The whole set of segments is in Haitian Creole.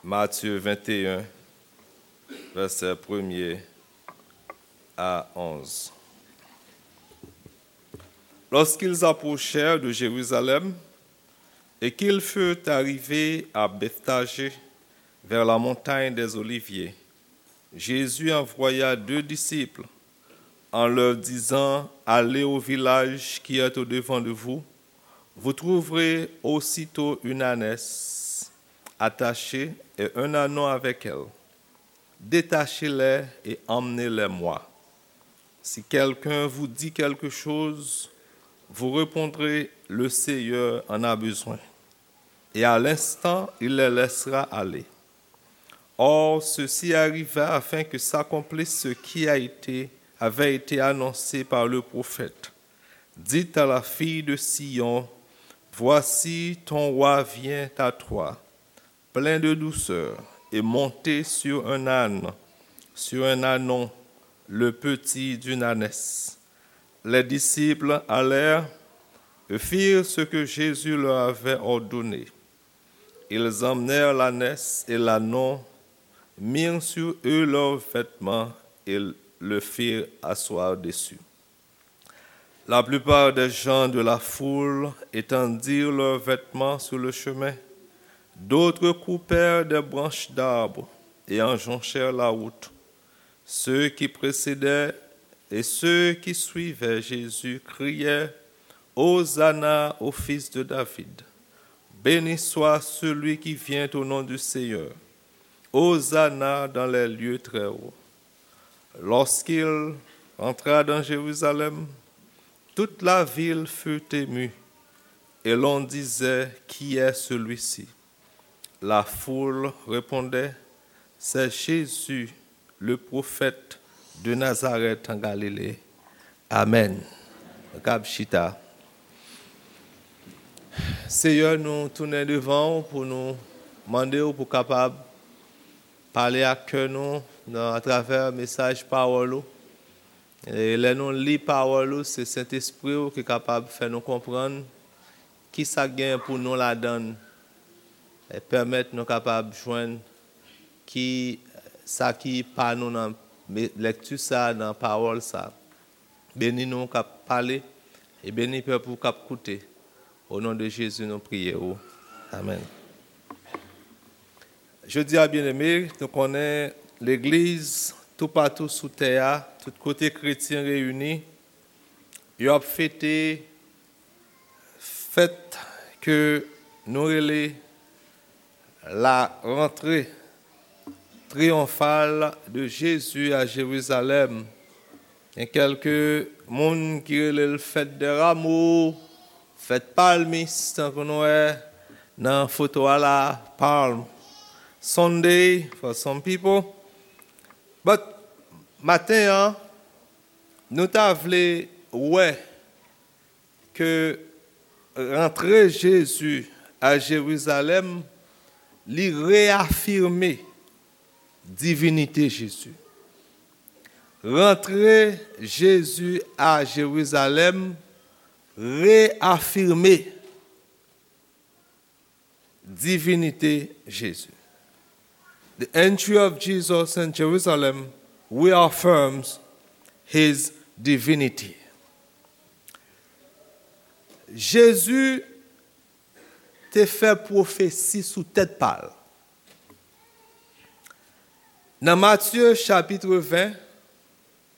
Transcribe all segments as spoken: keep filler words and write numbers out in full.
Matthieu vingt et un, versets premier à onze. Lorsqu'ils approchèrent de Jérusalem et qu'ils furent arrivés à Bethphagée, vers la montagne des Oliviers, Jésus envoya deux disciples en leur disant : « Allez au village qui est au-devant de vous. Vous trouverez aussitôt une ânesse attachée et un ânon avec elle. Détachez-les et emmenez-les moi. Si quelqu'un vous dit quelque chose, vous répondrez : Le Seigneur en a besoin. Et à l'instant, il les laissera aller. » Or, ceci arriva afin que s'accomplisse ce qui a été, avait été annoncé par le prophète : « Dites à la fille de Sion : Voici, ton roi vient à toi, plein de douceur, et monté sur un âne, sur un ânon, le petit d'une ânesse. » Les disciples allèrent et firent ce que Jésus leur avait ordonné. Ils emmenèrent l'ânesse et l'ânon, mirent sur eux leurs vêtements et le firent asseoir dessus. La plupart des gens de la foule étendirent leurs vêtements sur le chemin. D'autres coupèrent des branches d'arbres et en jonchèrent la route. Ceux qui précédaient et ceux qui suivaient Jésus criaient : « Hosanna au fils de David ! Béni soit celui qui vient au nom du Seigneur ! Hosanna dans les lieux très hauts ! » Lorsqu'il entra dans Jérusalem, toute la ville fut émue, et l'on disait : « Qui est celui-ci ? » La foule répondait : « C'est Jésus, le prophète de Nazareth en Galilée. » Amèn. Nou kab chita. Seyè, nou tounen devan w pou nou mande w pou kapab pale ak kè nou nan, atravè mesaj pawòl ou. E lè nou li pawòl ou, se Sentespri w ki kapab fè nou konprann ki sa k gen pou nou ladan l, e pèmèt nou kapab jwenn ki sa ki pa nou nan me-, lèkti sa, nan pawòl sa. Beni nou k ap pale, e beni pèp ou k ap koute. O non de Jezi, nou priye ou. Amèn. Jodi a, byeneme, nou konnen legliz toupatou sou tè a, tout kote kretyen reyini, yo ap fete fèt ke nou rele la rentrée triyonfale de Jésus à Jérusalem. Gen kèlke moun ki rele l fèt dè Ramo, fèt palmis, tankou nou wè nan foto a la, Palm Sunday for some people. But maten an, nou ta vle wè ke rantre Jezi a Jerizalèm, li reyafime divinite Jezi. Rantre Jezi a Jerizalèm reyafime divinite Jezi. The entry of Jesus in Jerusalem reaffirms his divinity. Jezi te fè pwofesi sou tèt pa l. Nan Matye chapit ven,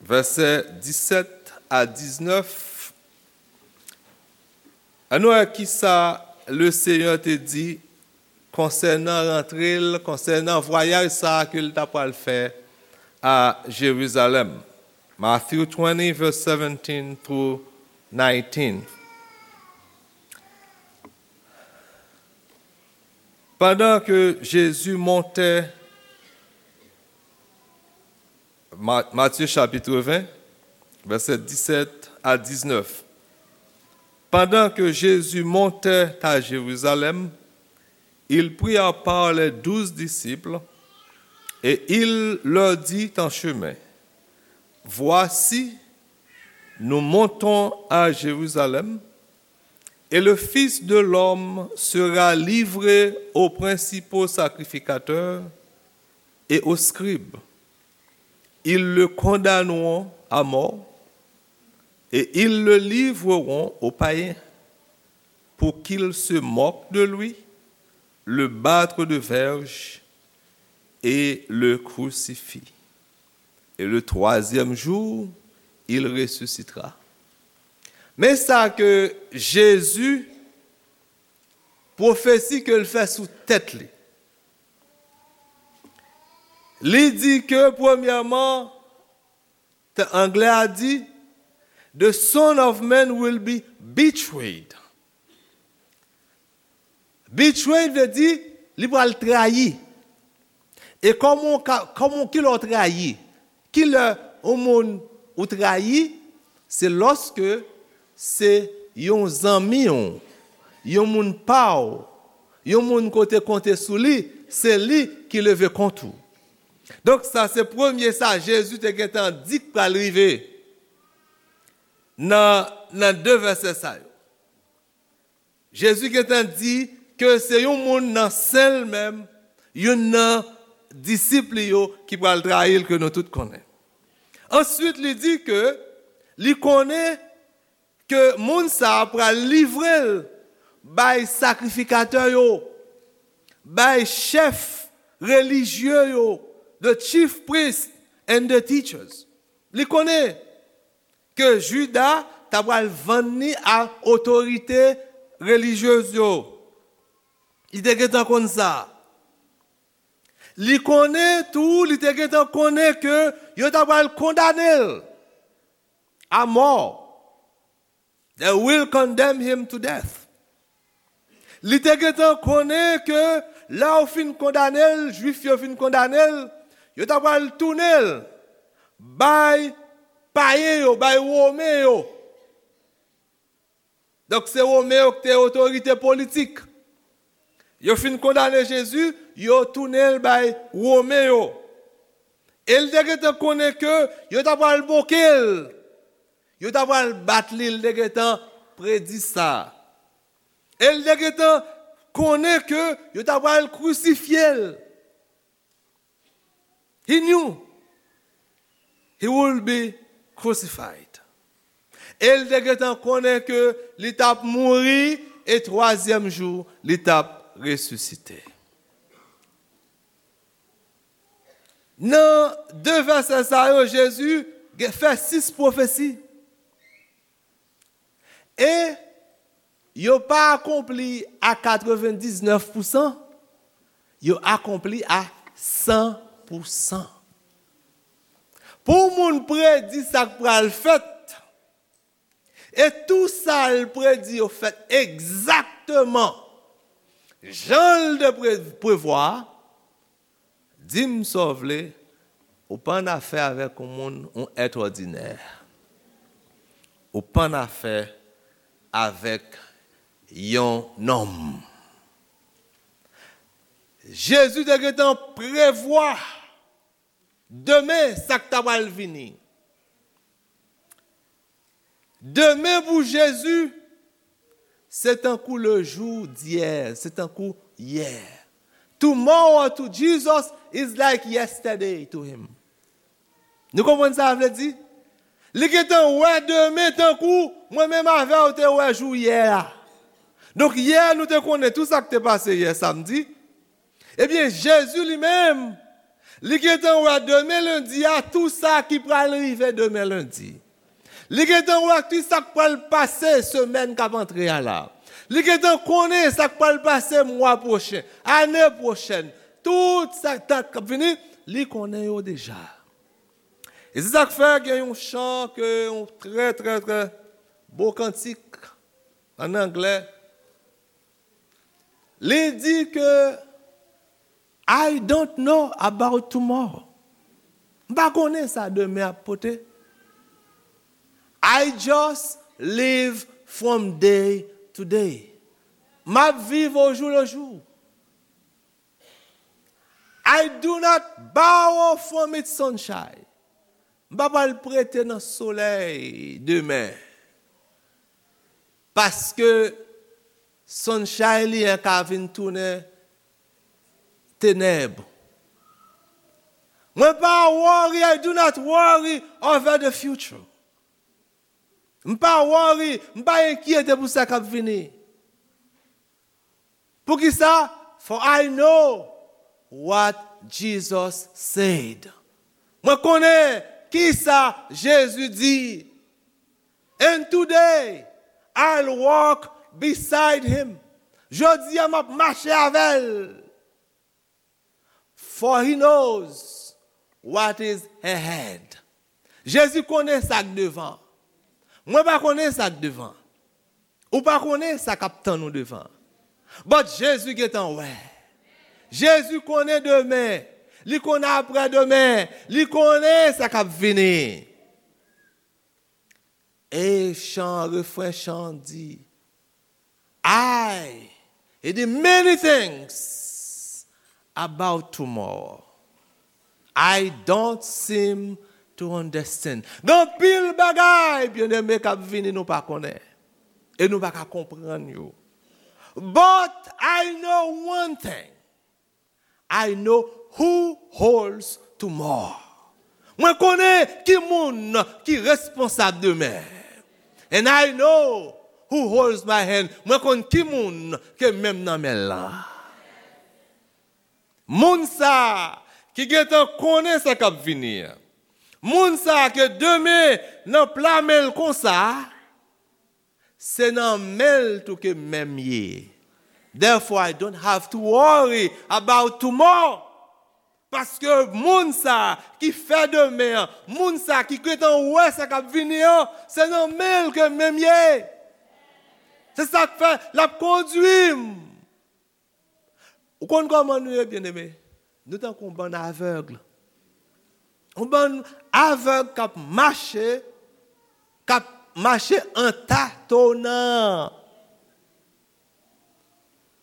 vèsè disèt a diznèf, ann wè kisa Lesenyè te di konsènan rantre l, konsènan vwayaj sa a ke l ta pral fè a Jerizalèm. Matthew twenty, verse seventeen through nineteen. Pandan ke Jezi montè, Ma-, Matye chapit ven, vèsè disèt a diznèf. Pandan ke Jezi montè a Jerizalèm, il prit à part les douze disciples et il leur dit en chemin : Voici, nous montons à Jérusalem, Et le Fils de l'homme sera livré aux principaux sacrificateurs et aux scribes. Ils le condamneront à mort et ils le livreront aux païens pour qu'ils se moquent de lui, le battent de verges et le crucifient. Et le troisième jour, il ressuscitera. Men sa ke Jezi, pwofesi ke l fè sou tèt li. Li di ke, premyèman, te anglè a di, "The Son of Man will be betrayed." Betrayed vle di, li pral trayi. E kòman w ka, kòman, ki lè w trayi? Ki lè yon moun ou trayi? Se lòske se yon zanmi w, yon moun pa w, yon moun ke w te konte sou li, se li ki leve kont ou. Donk, sa se premye sa Jezi te gentan di k pral rive nan, nan de vèsè sa yo. Jezi gentan di ke se yon moun nan sen l menm, youn nan disip li yo ki pral trayi l, ke nou tout konnen. Answit, li di ke li konnen ke moun sa a pral livre l bay sakrifikatè yo, bay chèf relijye yo, the chief priests and the teachers. Li konnen ke Jida ta pral vann li a otorite relijyez yo. Li te gentan konn sa. Li konnen tou, li te gentan konnen ke yo ta pral kondane l a mò. They will condemn him to death. Li te gentan konnen ke lè yo fin kondane l, Jwif yo fin kondane l, yo ta pral tounen l bay payen yo, bay Women yo. Donk, se Women yo ki te otorite politik. Yo fin kondane Jezi, yo tounen l bay Women yo. E l te gentan konnen ke yo ta pral moke l. Yo ta pral bat li, l te gentan predi sa. E l te gentan konnen ke yo ta pral krisifye l. He knew he would be crucified. E l te gentan konnen ke li t ap mouri e twazyèm jou, li t ap resisite. Nan de vèsè sa yo, Jezi gen, fè sis pwofesi. E yo pa akonpli a katrevendiznèf pousan, yo akonpli a san pousan. Pou yon moun predi sa k pral fèt, e tou sa l predi yo fèt egzakteman jan l te pre-, prevwa, di m sa w vle, ou pa annafè avèk yon moun, yon èt òdinè. Ou pa annafè avèk yon nonm. Jezi te gentan prevwa demen sa k ta pral vini. Demen pou Jezi, se tankou le jou d'hier, se tankou yè. Tomorrow to Jesus is like yesterday to him. Nou konprann sa vle di? Li gentan wè demen tankou mwen menm avè w te wè jou yè a. Donk, yè, nou te konnen tou sa k te pase yè samdi. Ebyen, Jezi li menm, li gentan wè demen lendi a, tou sa ki pral rive demen lendi. Li gentan wè tou sa k pral pase semèn k ap antre a la. Li gentan konnen sa k pral pase mwa pwochen, ane pwochèn. Tout sa k ap vini, li konnen yo deja. E se sa k fè gen yon chan ke, yon trè, trè, trè bo kantik ann anglè. Li di ke, "I don't know about tomorrow." M pa konnen sa demen ap pote. "I just live from day to day." M ap viv au jour le jour. "I do not borrow from its sunshine." M pa pral prete nan solèy demen. Paske Sunshine li an ka vin tounen tenèb. Mwen pa worry, I do not worry over the future. M pa worry, m pa enkyete pou sa k ap vini. Poukisa? For I know what Jesus said. Mwen konnen kisa Jezi di. And today, I'll walk beside him. Jodi a, m ap mache avè l. For he knows what is ahead. Jezi konnen sa k devan. Mwen pa konnen sa k devan. Ou pa konnen sa k ap tann ou devan. But Jezi gentan wè. Jezi konnen demen. Li konnen apre demen. Li konnen sa k ap vini. E chan, refren chan di, I, e di many things about tomorrow. I don't seem to understand. Gen anpil bagay, byeneme, k ap vini nou pa konnen. E nou pa ka konprann yo. But I know one thing. I know who holds tomorrow. Mwen konnen ki moun ki responsab demen. And I know who holds my hand. Mwen konn ki moun ke men m nan men l lan. Moun sa ki gentan konnen sa k ap vini an. Moun sa ke demen nan pla men l konsa, se nan men l tou ke men m ye. Therefore, I don't have to worry about tomorrow. Paske moun sa ki fè demen an, moun sa ki gentan wè sa k ap vini an, se nan men l ke men m ye. Se sa k fè l ap kondui m. Ou konn kòman nou ye, byeneme? Nou tankou yon bann avèg. Yon bann avèg k ap mache, k ap mache an tatonan.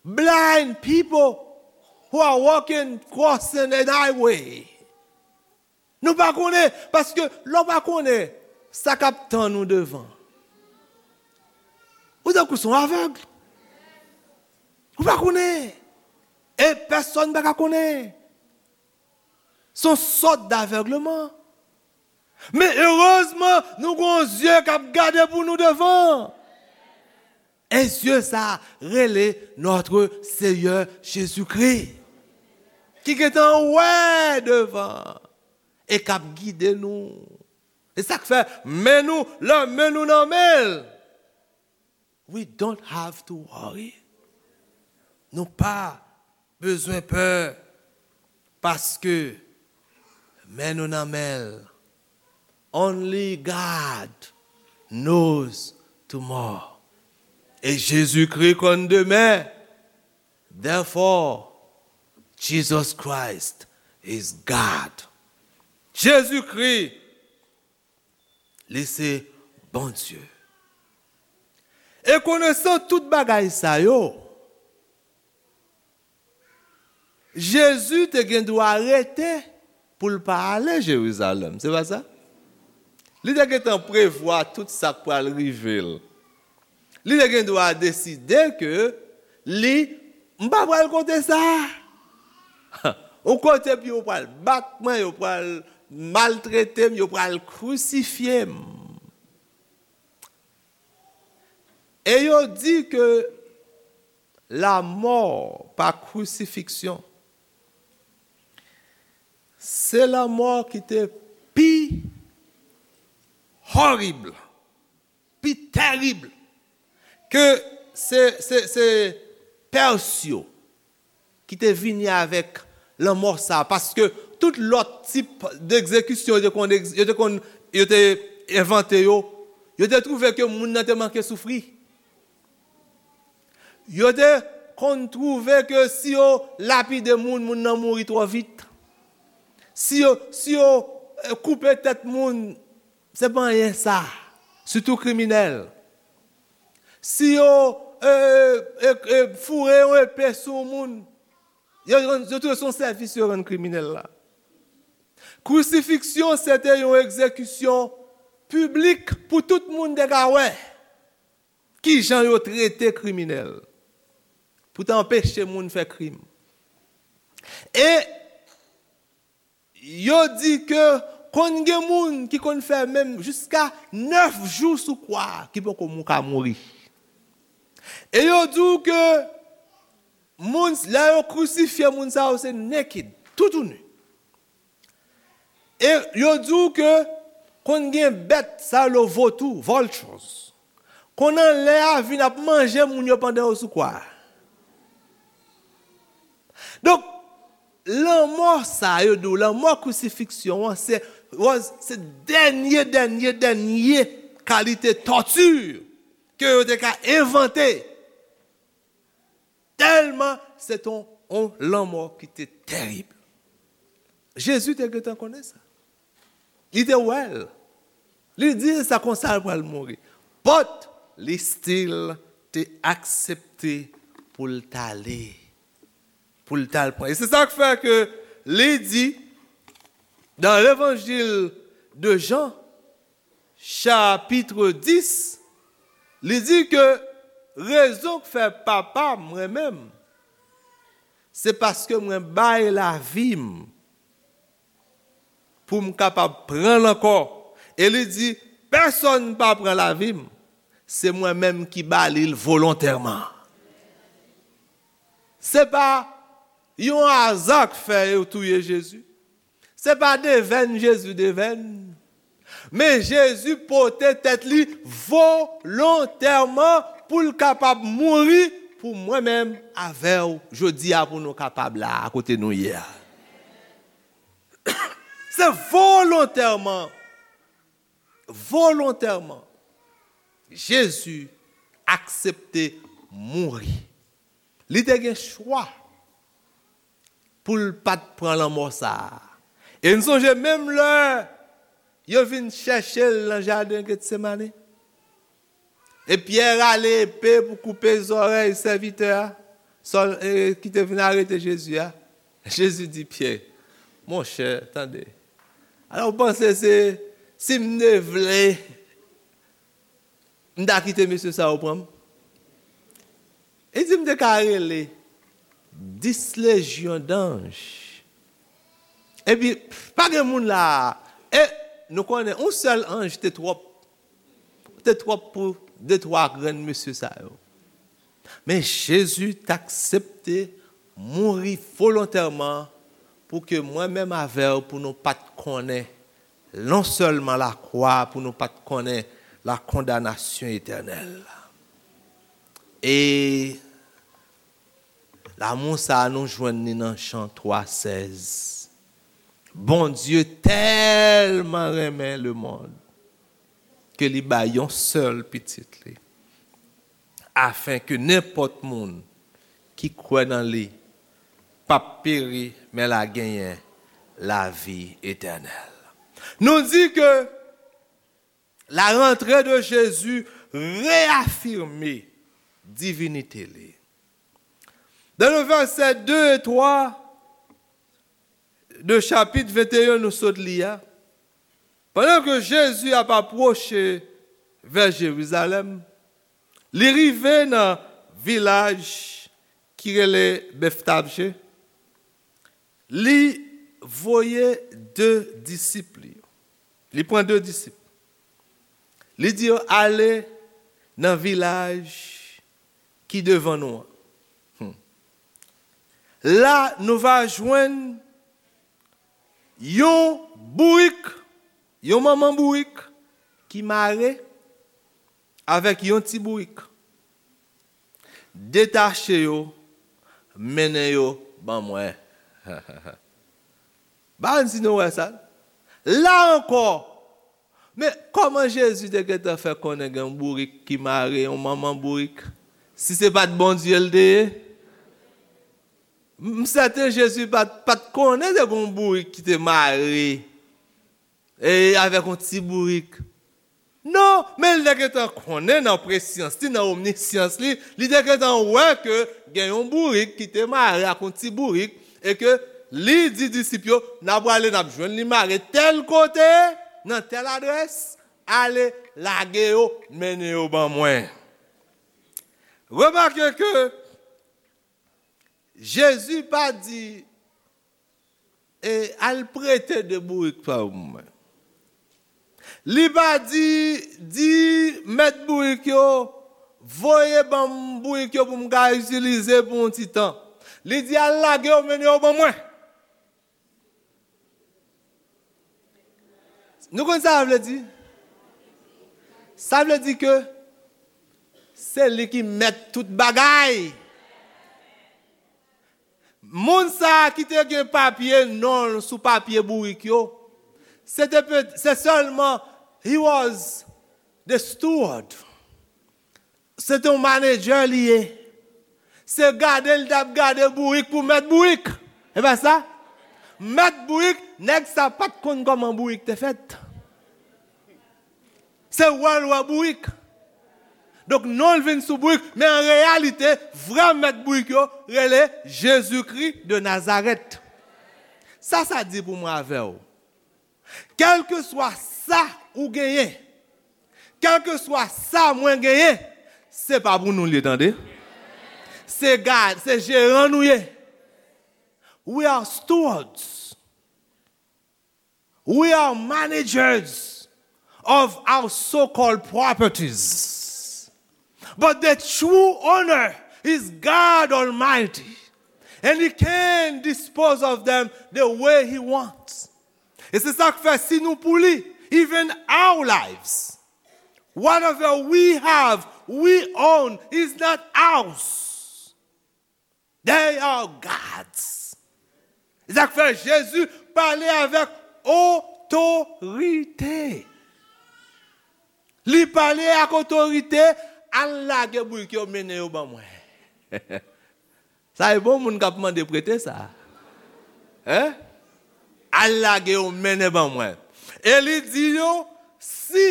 Blind people who are walking, crossing an highway. Nou pa konnen, paske lè w pa konnen sa k ap tann ou devan, ou tankou se yon avèg. Ou pa konnen. E pèsonn pa ka konnen. Se yon sòt davègleman. Men erezman, nou gen yon zye k ap gade pou nou devan. E zye sa rele Notre Seigneur Jésus-Christ, ki gentan wè devan e k ap gide nou. E sa k fè men nou, lè men nou nan men l, we don't have to worry. Nou pa bezwen pè, paske men nou nan men l. Only God knows tomorrow. E Jezikri konn demen. Therefore, Jesus Christ is God. Jezikri, li se Bondye. E konesan tout bagay sa yo, Jezi te gen dwa rete pou l pa ale Jerizalèm, se pa sa? Li te gentan prevwa tout sa k pral rive l. Li te gen dwa deside ke li, m pa pral kote sa. Yon kote pou yo pral bat mwen, yo pral maltrete m, yo pral krisifye m. E yo di ke lanmò pa krisifiksyon, se lanmò ki te pi horib, pi terib, ke se, se, se Pès yo ki te vini avèk lanmò sa, paske tout lòt tip degzekisyon yo te konn egz-, yo te konn, yo te envante yo, yo te twouve ke moun nan te manke soufri. Yo te konn twouve ke si yo lapide moun, moun nan mouri twò vit. Si yo, si yo, eh, koupe tèt moun, se pa anyen sa, sitou kriminèl. Si yo, eh, eh, eh, foure yon epe sou yon moun, yo, yo, yo twouve se yon sèvis yo rann kriminèl la. Krisifiksyon se te yon egzekisyon piblik pou tout moun te ka wè kijan yo trete kriminèl. pou te anpeche moun fè krim. E yo di ke konn gen moun ki konn fè menm jiska nèf jou sou kwa a, ki poko mou ka mouri. E yo di w ke moun, lè yo krisifye moun sa yo, se naked, toutouni. E yo di w ke konn gen bèt, sa yo rele votou, vultures, konn anlè a vin ap manje moun yo pandan yo sou kwa a. Donk, lanmò sa yo di w, lanmò krisifiksyon an, se, was, se dènye, dènye, dènye kalite tòti ke yo te ka envante. Tèlman se te yon, yon lanmò ki te terib. Jezi te gentan konnen sa. Li te wè l. Li di sa konsa l pral mouri. But li still te aksepte pou l t ale. Pou l t al pran. E se sa k fè ke li di nan levanjil de Jan, chapit dis, li di ke rezon k fè Papa m renmen m, se paske mwen bay lavi m pou m kapab pran l ankò. E li di, pèsonn pa pran lavi m, se mwen menm ki ba li l volontèman. Se pa yon aza k fè yo touye Jezi. Se pa devèn Jezi devèn. Men Jezi pote tèt li volontèman pou l kapab mouri pou mwen menm avè w jodi a, pou nou kapab la a kote nou ye a. Se volontèman, volontèman, Jezi aksepte mouri. Li te gen chwa pou l pa t pran lanmò sa a. E n sonje menm lè yo vin chèche l nan jaden Getsemane. E Pyè rale epe pou koupe zòrèy sèvitè a, sòl, e, ki te vin arete Jezi a. Jezi di Pyè, monchè, tande. Alò, w panse se, si m te vle, m ta kite mesye sa yo pran m? Li di m te ka rele dis lejyon danj. Epi, pa gen moun la a. E nou konnen, yon sèl anj te twòp. Te twòp pou de twa grenn mesye sa yo. Men Jezi t aksepte mouri volontèman pou ke mwen menm avè w, pou nou pa t konnen non sèlman lakwa, pou nou pa t konnen la kondanasyon etènèl. E lanmou sa a, nou jwenn li nan Jan twa sèz. Bondye tèlman renmen lemonn ke li bay yon sèl pitit li, afen ke nenpòt moun ki kwè nan li p ap peri, men l a genyen lavi etènèl. Nou di ke la rantre de Jezi reyafime divinite li. Dans le verset deux et trois de chapit venteyen nou sot li a, pandan ke Jezi ap apwoche vè Jerizalèm, li rive nan vilaj ki rele Betfajye. Li voye de disip li yo. Li pran de disip. Li di yo, ale nan vilaj ki devan nou an. Hmm. La, nou va jwenn yon bourik, yon manman bourik ki mare avèk yon ti bourik. Detache yo, mennen yo ban mwen. Ba n si nou wè sa. La ankò, men kòman Jezi te gentan fè konnen gen yon bourik ki mare, yon manman bourik, si se pa t Bondye l te ye? M, m sèten Jezi pa t, pa t konnen te gen yon bourik ki te mare e avèk yon ti bourik. Non, men li te gentan konnen nan presyans li, nan omnisyans li, li te gentan wè ke gen yon bourik ki te mare ak yon ti bourik, e ke li di disip yo, n a prale, n ap jwenn li mare tèl kote, nan tèl adrès, ale, lage yo, mennen yo ban mwen. Remake ke Jezi pa di, e, al prete de bourik pa mwen. Li pa di, di mèt bourik yo, voye ban m bourik yo pou m ka itilize pou yon ti tan. Li di, al lage yo, mennen yo ban mwen. Nou konn sa sa vle di? Sa vle di ke se li ki mèt tout bagay. Moun sa a ki te gen papye non l sou papye bourik yo, se te pe- se sèlman, he was the steward. Se te yon manedjè li ye. Se gade l t ap gade bourik pou mèt bourik. E pa sa? Mèt bourik, nèg sa pa t konn kòman bourik te fèt. Se wè l wè bourik. Donk, non l vin sou bourik, men an reyalite, vrè mèt bourik yo rele Jezikri de Nazarèt. Sa sa di pou mwen avè w? Kèlkeswa sa ou genyen, kèlkeswa sa mwen genyen, se pa pou nou l ye, tande. Se gad, se jeran nou ye. We are stewards. We are managers of our so-called properties. But the true owner is God Almighty. And he can dispose of them the way he wants. E se sa k fè si nou pou li, even our lives, whatever we have, we own, is not ours. They are God's. E sa k fè Jezi pale avèk otorite. Li pale ak otorite, al lage bourik yo, mennen yo ban mwen. Sa e bon moun k ap mande prete sa. Hein? Al lage yo, mennen ban mwen. E li di yo, si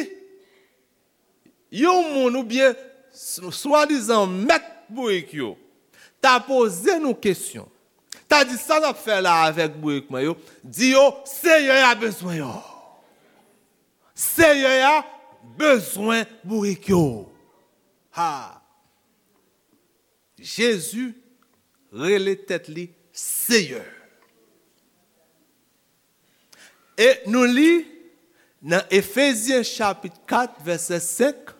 yon moun oubyen s- swadizan mèt bourik yo ta poze nou kesyon, ta di, sa n ap fè la avèk bourik mwen yo? Di yo, Seyè a bezwen yo. Seyè a bezwen bourik yo. Ha! Jezi rele tèt li Seyè. E nou li nan Efezyen chapit kat, vèsè senk,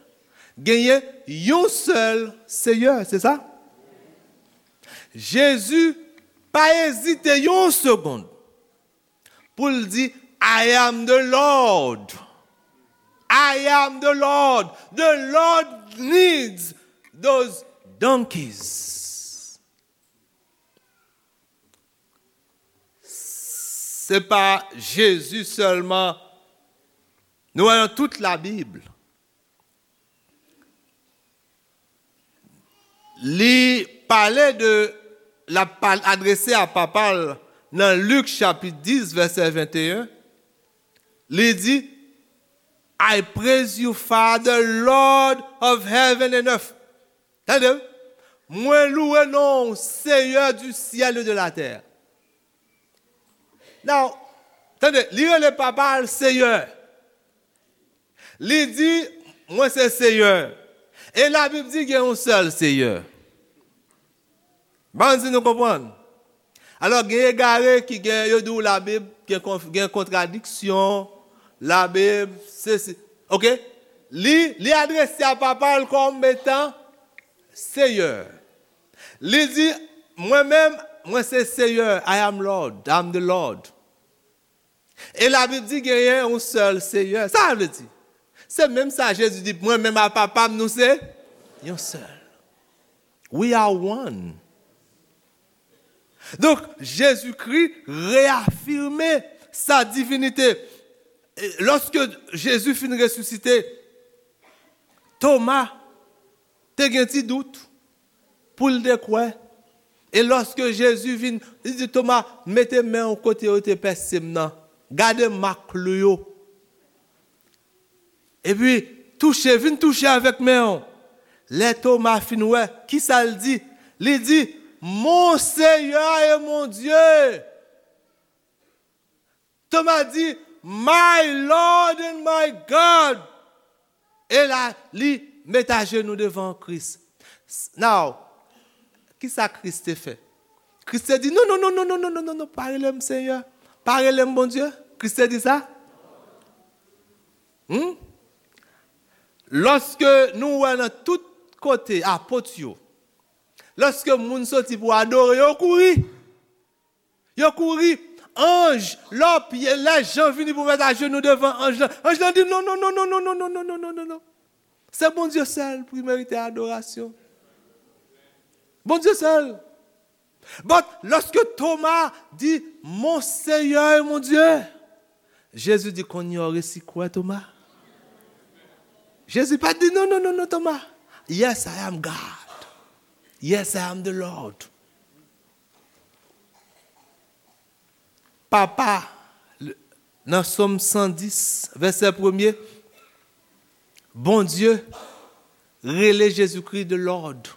genyen yon sèl Seyè, se sa? Jezi pa ezite yon segonn pou l di, I am the Lord. I am the Lord. The Lord needs those donkeys. Se pa Jezi sèlman. Nou wè nan tout Labib, li pale de, l ap pa- adrese a Papa l nan Lik chapit dis, vèsè venteyen. Li di, I praise you, Father, Lord of heaven and earth. Tande, mwen louwe non w, Seyè du ciel et de la terre. Now, tande, li rele Papa l Seyè. Li di, mwen se Seyè. E Labib di gen yon sèl Seyè. Ban m si nou konprann. Alò, gen egare ki gen, yo di w Labib gen konf- gen kontradiksyon, Labib, se, se, oke? Li, li adrese a Papa l kòm etan Seyè. Li di, mwen menm, mwen se Seyè, I am Lord, I'm the Lord. E Labib di genyen yon sèl Seyè. Sa sa vle di? Se menm sa Jezi di, mwen menm a Papa m, nou se yon sèl. We are one. Donk, Jezikri reyafime sa divinite. E lòske Jezi fin resisite, Toma te gen ti dout pou l te kwè. E lòske Jezi vin, li di Toma, mete men w kote yo te pèse m nan. Gade mak klou yo. Epi, touche, vin touche avèk men w. Lè Toma fin wè, kisa l di? Li di, Mon Seyè e mon Dye! Toma di, My Lord and my God! E la, li met ajenou devan Kris. S- Now, kisa Kris te fè? Kris te di, non, non, non, non, non, non, non, non, non, pa rele m Seyè. Pa rele m Bondye. Kris te di sa? Hmm? Lòske nou wè nan tout kote apot yo, lòske moun soti pou adore, yo kouri. Yo kouri. Anj, lè, lè Jan vini pou mèt ajenou devan anj lan, anj lan di, non, non, non, non, non, non, non, non, non, non, non, non. Se Bondye sèl pou merite adorasyon. Bondye sèl. But, lòske Toma di, mon Seyè e mon Dye, Jezi di, kounye a w resi kwè, Toma. Jezi pa t di, non, non, non, non, Toma. Yes, I am God. Yes, I am the Lord. Papa, nan Sòm san dis, vèsè premye, Bondye rele Jezikri the Lord.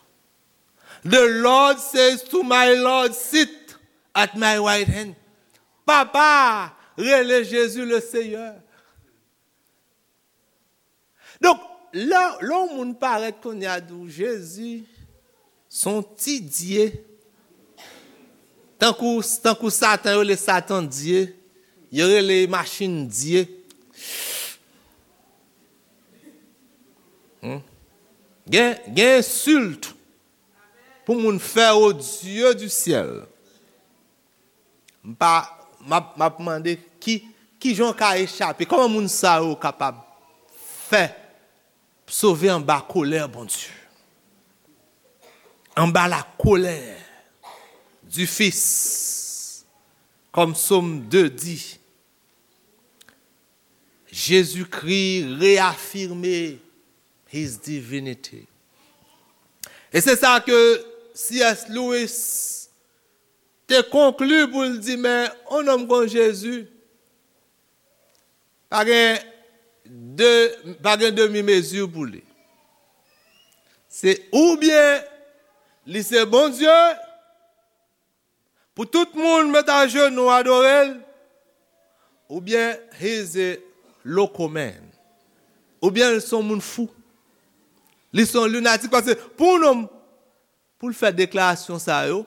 The Lord says to my Lord, sit at my right hand. Papa rele Jezi le Seyè. Donk, lè, lè yon moun parèt kounye a di w, Jezi, se yon ti dye. Tankou, tankou Satan, yo rele Satan dye. Yo rele machin dye. Hmm? Gen, gen ensilt pou moun fè au Dieu du ciel. M pa, m ap, m ap mande ki, ki jan w ka echape? Kòman moun sa yo kapab fè sove anba kolè Bondye? Anba la colère du Fils, comme Psaume deux dit, Jésus-Christ réaffirmait his divinity. E se sa ke C S Lewis te konkli pou l di, men yon nonm kon Jezi, pa gen de, pa gen demi mezi pou li. Se oubyen li se Bondye, pou tout moun met ajenou adore l, oubyen he is a loco man. Oubyen li se yon moun fou. Li se yon linatik, paske pou yon nonm, pou l fè deklarasyon sa yo,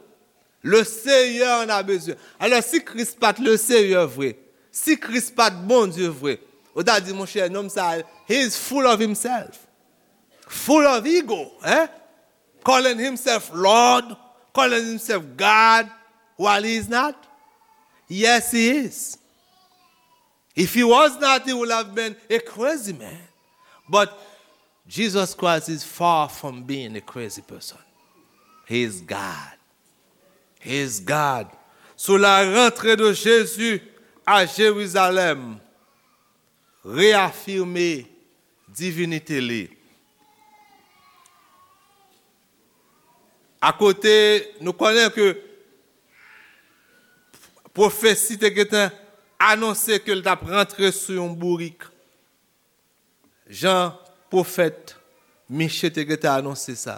le Seyè an a bezwen. Alò, si Kris pa t le Seyè vre, si Kris pa t Bondye vre, ou ta di, monchè, nonm sa, he is full of himself, full of ego, hein? Calling himself Lord, calling himself God, while he is not. Yes, he is. If he was not, he would have been a crazy man. But Jesus Christ is far from being a crazy person. He is God. He is God. Sous la rentrée de Jésus à Jérusalem, réaffirmer divinité li. Akote, nou konnen ke pwofesi te gentan anonse ke l t ap rantre sou yon bourik. Jan pwofèt Miche te gentan anonse sa.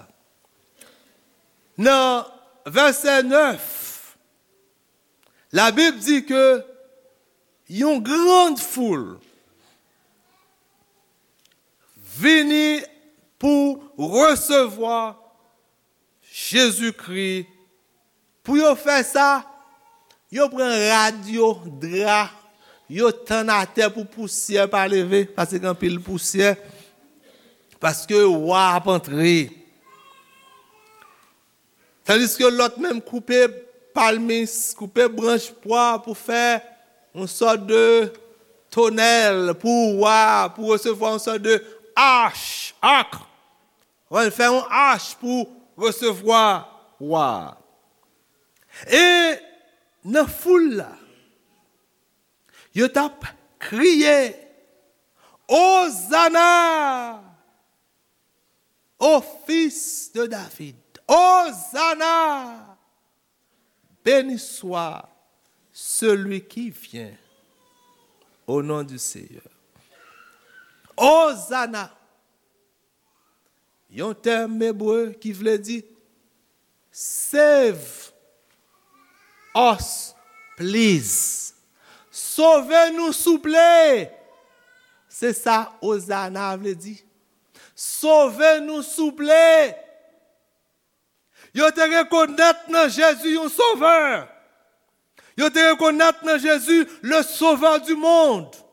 Nan vèsè nèf, Labib di ke yon grand foul vini pou resevwa Jezikri. Pou yo fè sa, yo pran rad yo, dra, yo tann atè pou pousyè pa leve, paske gen anpil pousyè, paske wa ap antre. Tandiske lòt menm koupe palmis, koupe branch pwa pou fè yon sòt de tonèl pou wa, pou resevwa yon sòt de ach, ak. Wè, fè yon ach pou resevwa wa. E nan foul la, yo t ap kriye, Ozana! Ô fils de David, Ozana! Béni soit celui qui vient au nom du Seigneur. Ozana! Yon tèm ebre ki vle di save us, please. Sove nou, souple. Se sa Ozana vle di. Sove nou, souple. Yo te rekonèt nan Jezi yon sovè. Yo te rekonèt nan Jezi le sauveur du monde.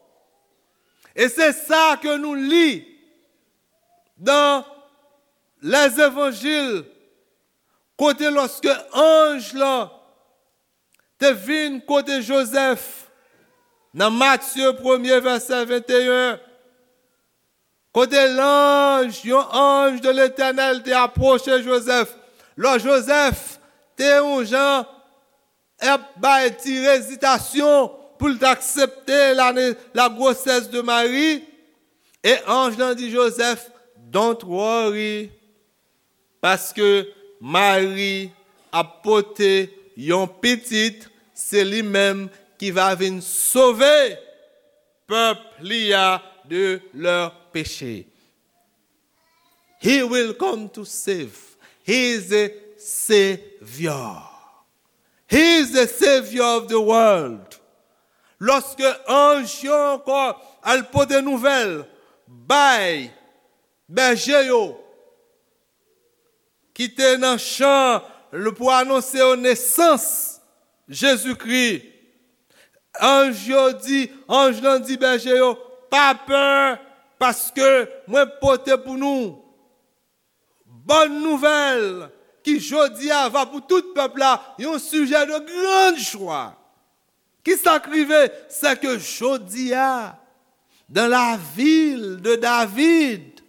E se sa ke nou li dan Lèzevanjil, kote lòske anj lan te vin kote Jozèf, nan Matye premye vèsè venteyen, kote lanj, yon anj de Letènèl te apwoche Jozèf. Lò Jozèf te yon jan ap bay ti ezitasyon pou l t aksepte la, la gwosès de Mari, e anj lan di Jozèf, "Don't worry, paske Mari ap pote yon pitit, se li menm ki va vin sove pèp li a de lè peche." He will come to save. He is a savior. He is the savior of the world. Lòske anj yo ankò al pote nouvèl bay bèje yo ki te nan chan pou anonse yo nesans Jezikri, anj yo di, anj lan di bèje yo, "Pa pè, paske mwen pote pou nou bòn nouvèl ki jodi a va pou tout pèp la yon sijè de grande joie." Ki sa k rive? Se ke jodi a, dans la ville de David,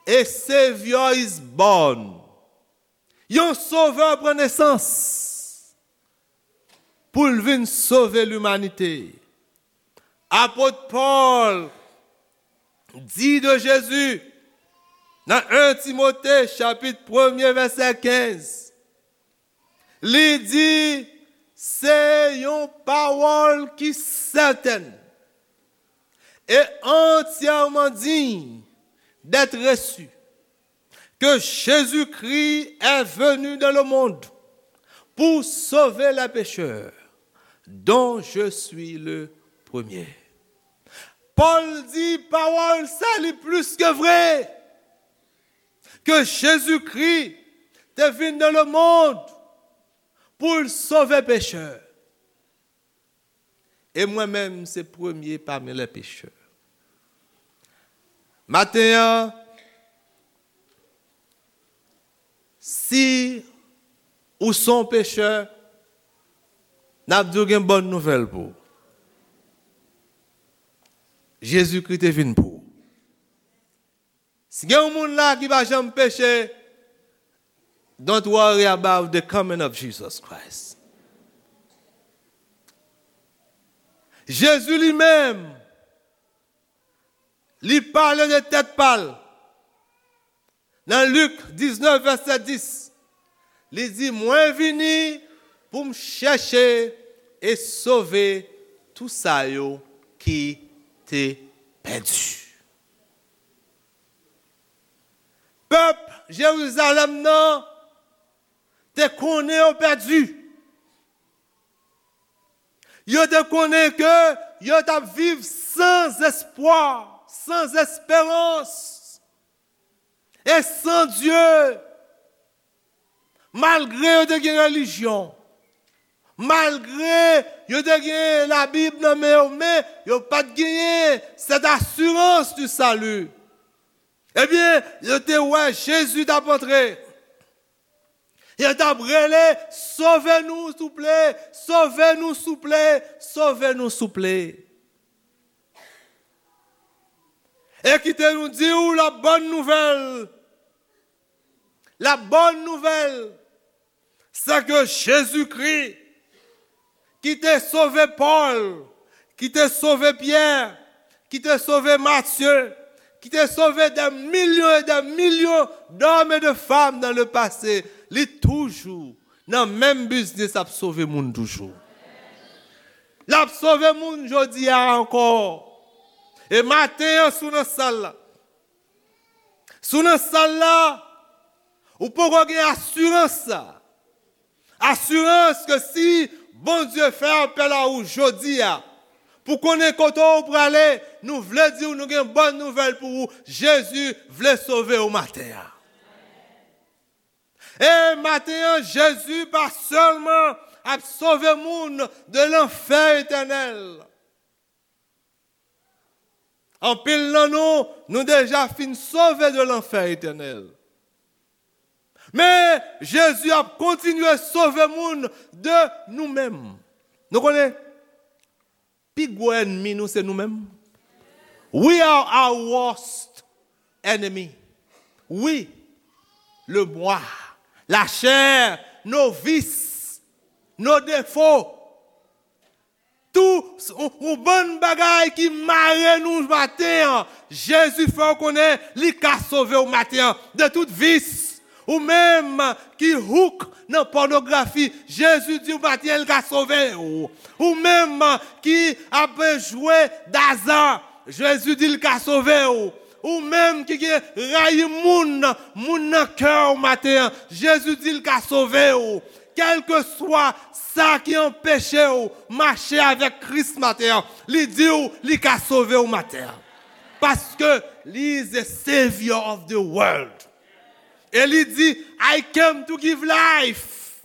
a Savior is born. Yon sovè pran nesans pou l vin sove limanite. Apot Pòl di de Jezi nan en Timote chapit premye vèsè kenz, li di, se yon pawòl ki sètèn e antyèman diy d'être reçu, que Jésus-Christ est venu dans le monde pour sauver les pécheurs, dont je suis le premier. Pòl di pawòl sa li plis ke vre, ke Jezikri te vin dans le monde pou l sove pechè. E mwen menm, se premye pami lè pechè. Maten an, si ou se yon pechè, n ap di w gen bòn nouvèl pou ou. Jezikri te vin pou ou. Si gen yon moun la ki pa janm peche, don't worry about the coming of Jesus Christ. Jezi li menm, li pale de tèt pa l. Nan Lik diznèf, vèsè dis, li di, mwen vini pou m chèche e sove tou sa yo ki te pèdi. Pèp Jerizalèm nan te konnen yo pèdi. Yo te konnen ke yo t ap viv san espwa, san esperans e san Dye. Malgre yo te gen relijyon, malgre yo te gen Labib nan men yo, men yo pa t genyen cette assurance du salut. Ebyen, yo te wè Jezi t ap antre. Yo t ap rele, sove nou, souple, sove nou, souple, sove nou, souple. E kite nou di w la bòn nouvèl. La bòn nouvèl, se ke Jezikri, ki te sove Pòl, ki te sove Pyè, ki te sove Matye, ki te sove des millions et des millions d'hommes et de femmes dans le passé, li toujou nan menm biznis ap sove moun toujou. L ap sove moun jodi a ankò. E maten an, si w nan sal la, si w nan sal la, ou poko gen asirans sa. Asirans ke si Bondye fè apèl a ou jodi a, pou konnen kote w prale, nou vle di w nou gen bòn nouvèl pou ou. Jezi vle sove w maten an. E maten an, Jezi pa sèlman ap sove moun de lanfè etènèl. Anpil nan nou, nou deja fin sove de lanfè etènèl. Men, Jezi ap kontinye sove moun de nou menm. Nou konnen, pi gwo ènmi nou se nou menm. We are our worst enemy. Wi, le moi, la chair, nos vices, nos défauts. Tou, yon, yon bann bagay ki mare nou maten an. Jezi fè w konnen li ka sove w maten an de tout vis. Ou menm ki hook nan pònografi, Jezi di w maten an li ka sove w. Ou menm ki ap jwe daza, Jezi di l ka sove w. Ou menm ki gen rayi moun, moun nan kè w maten an, Jezi di l ka sove w. Kèlkeswa sa ki anpeche w mache avèk Kris maten an, li di w li ka sove w maten an. Paske li is the savior of the world. E li di, "I came to give life,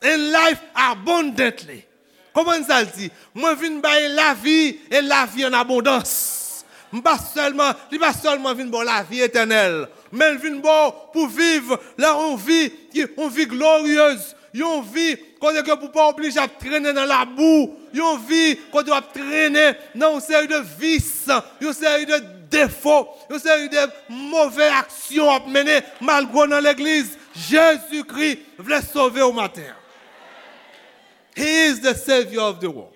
and life abundantly." Konprann sa l di? "Mwen vin bay lavi, e lavi an abondans." M pa sèlman, li pa sèlman vin ba w lavi etènèl, men l vin ba w pou viv la yon vi ki, yon vi gloryez, yon vi kote ke pou pa oblije ap trennen nan labou, yon vi kote w ap trennen nan yon seri de vis, yon seri de defo, yon seri de move aksyon w ap mennen malgre w nan legliz. Jezikri vle sove w maten an. He is the savior of the world.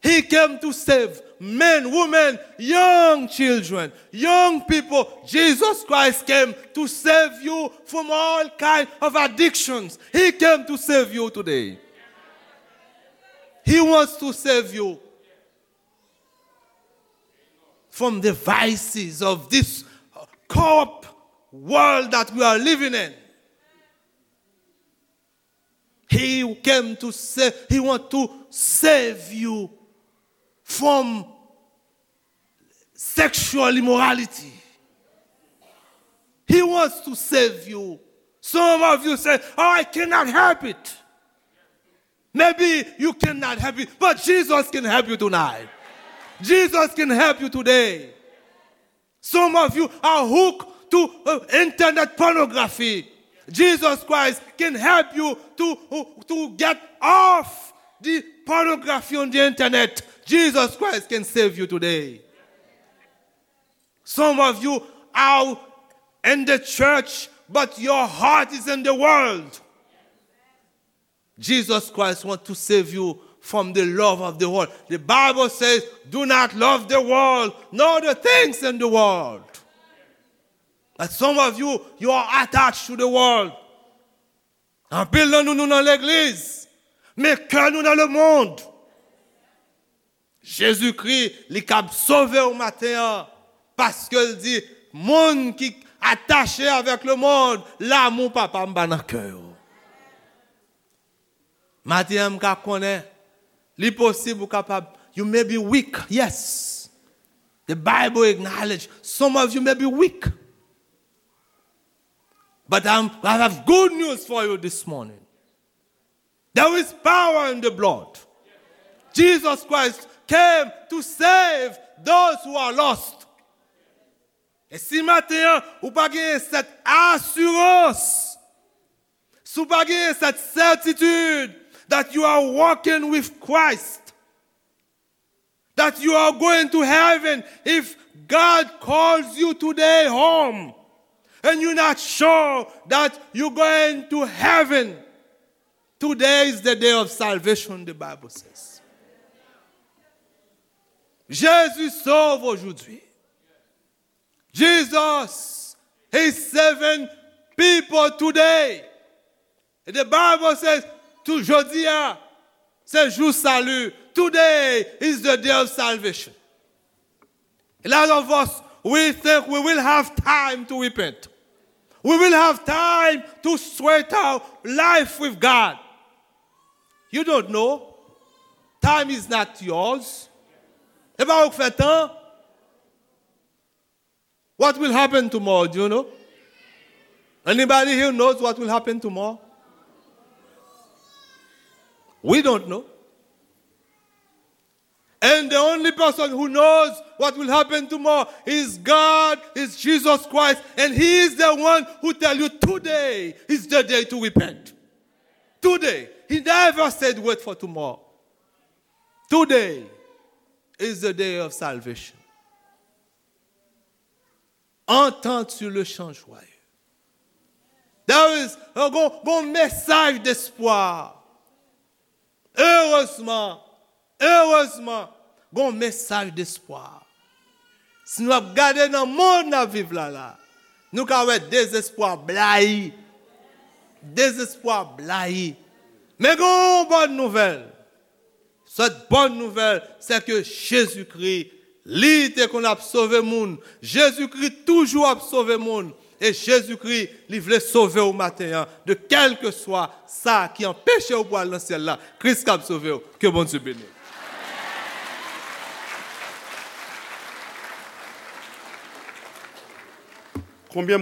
He came to save men, women, young children, young people. Jesus Christ came to save you from all kind of addictions. He came to save you today. He wants to save you from the vices of this corrupt world that we are living in. He came to save, he want to save you from sexual immorality. He wants to save you. Some of you say, "Oh, I cannot help it." Maybe you cannot help it, but Jesus can help you tonight. Jesus can help you today. Some of you are hooked to uh, internet pornography. Jesus Christ can help you to, to get off the pornography on the internet. Jesus Christ can save you today. Some of you are in the church, but your heart is in the world. Jesus Christ wants to save you from the love of the world. The Bible says, "Do not love the world, nor the things in the world." But some of you, you are attached to the world. Anpil nan nou, nou nan legliz, men kè nou nan lemonn. Jezikri, li kab sove w maten an, paske l di, "Moun ki atache avèk lemonn, lanmou Papa m pa nan kè yo." Maten an, m ka konnen, li posib ou kapab, you may be weak, yes. The Bible acknowledge some of you may be weak. But I'm, I have good news for you this morning. There is power in the blood. Jesus Christ came to save those who are lost. E si maten an, ou pa genyen sèt asirans, si ou pa genyen sèt sètitid that you are walking with Christ, that you are going to heaven, if God calls you today home and you're not sure that you're going to heaven, today is the day of salvation, the Bible says. Jésus sauve aujourd'hui. Jesus is saving people today. And the Bible says, tou jodi a, se jou sali. Today is the day of salvation. A lot of us, we think we will have time to repent. We will have time to straight our life with God. You don't know. Time is not yours. E pa ou k fè tan. What will happen tomorrow, do you know? Anybody here knows what will happen tomorrow? We don't know. And the only person who knows what will happen tomorrow is God, is Jesus Christ, and He is the one who tell you today is the day to repent. Today. He never said wait for tomorrow. Today is the day of salvation. Entente sur le change, joyeux. There is, gon, gon mesaj despwa. Erezman, erezman, gon mesaj despwa. Si nou ap gade nan mond n ap viv la la, nou ka wè dezespwa blayi. Dezespwa blayi. Men gon bòn nouvèl. Cette bonne nouvelle, c'est que Jezikri, li te konn ap sove moun. Jezikri toujou ap sove moun. E Jezikri, li vle sove w maten an. De kèlkeswa sa ki anpeche w pou al nan syèl la, Kris kab sove w. Ke Bondye beni w. Konbyen